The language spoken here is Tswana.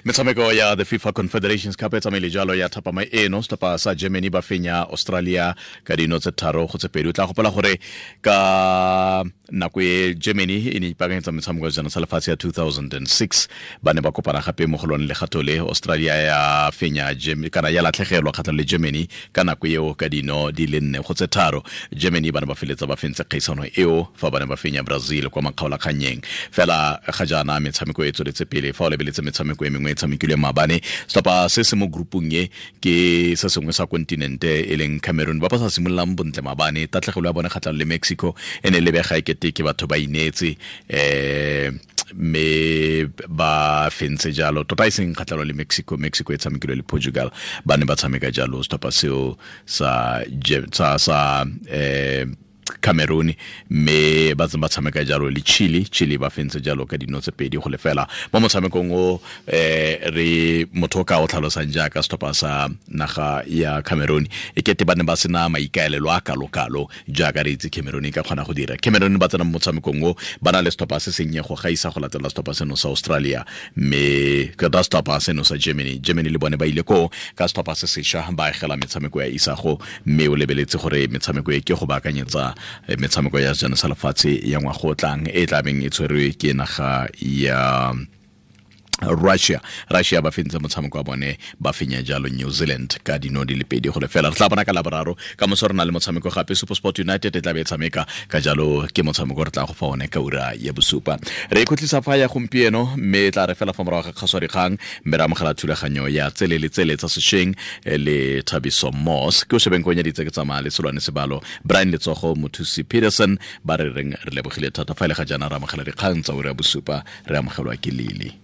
Metshameko ya the FIFA Confederations Cup e tsamaile jalo ya thapama eno. Setlhopha sa Germany ba fenya Australia ka dino tse 3-2. O tla gopola gore ka nako e Germany e ne ipaakanyetsa metshameko ya sejana sa lefatshe ya 2006, ba ne ba kopana gape mo go lone legato le. Australia ya fenya kana ya latlhegelwa kgatlhanong le Germany ka nako eo ka dino di le 4-3. Germany ba ne ba feletsa ba fentse kgaisano eo fa ba ne ba fenya Brazil kwa makgaolakgannyeng. Fela ga jaana metshameko e tsweletse pele. Fa o lebeletse metshameko e mengwe e tshamekilwe maabane, setlhopha se se mo groupung e ke se sengwe sa kontinente e leng Cameroon, ba ba sa simololang bontle maabane. Tatlhegelo ya bone kgatlhanong le Mexico e ne lebega e kete ke batho ba ineetse, mme ba fentse jalo tota, e seng kgatlhanong le Mexico. Mexico e tshamekilwe le Portugal, ba ne ba tshameka jalo setlhopha seo sa Cameroon, mme ba tse ba tshameka jalo le Chile. Chile ba fentse jalo ka dino tse 2-0 mo motshamekong o. Re motho o ka o tlhalosang jaaka setlhopha sa naga ya Cameroon e kete ba ne ba sena maikaelelo a kalo-kalo jaaka re itse Cameroon e ka kgona go dira. Cameroon ba tsena mo motshamekong o ba na le setlhopha se sennye go gaisa go latela setlhopha seno sa Australia, mme ka setlhopha seno sa Germany. Germany le bone ba ile koo ka setlhopha se sešwa, ba agela metshameko ya isago, mme o lebeletse gore metshameko e ke go baakanyetsa metshameko ya sejana sa lefatshe ya ngwaga o tlang e tla beng e tshwerwe ke naga ya Russia. Russia ba fentse motshameko wa bone, ba fenya jalo New Zealand ka dino di le 2-0. Re tla bona ka Laboraro. Ka moso re na le motshameko gape, SuperSport United e tla be e tshameka, ka jalo ke motshameko re tla go fa one ka ura ya 7. Re ikhutlisa fa ya gompieno, mme e tla re fela fa morago ga kgaswa dikgang, mme re amogela thulaganyo ya tsele le tsele tsa sešweng le Thabiso Moss. Ke o shebeng konyeditse ke tsamaya le Selwane Sebalo, Brian Letsogo, Mothusi Peterson, ba re reng re lebogile thata. Fa e le ga jaana re amogela dikgang tsa ura ya 7, re amogelwa ke Lily.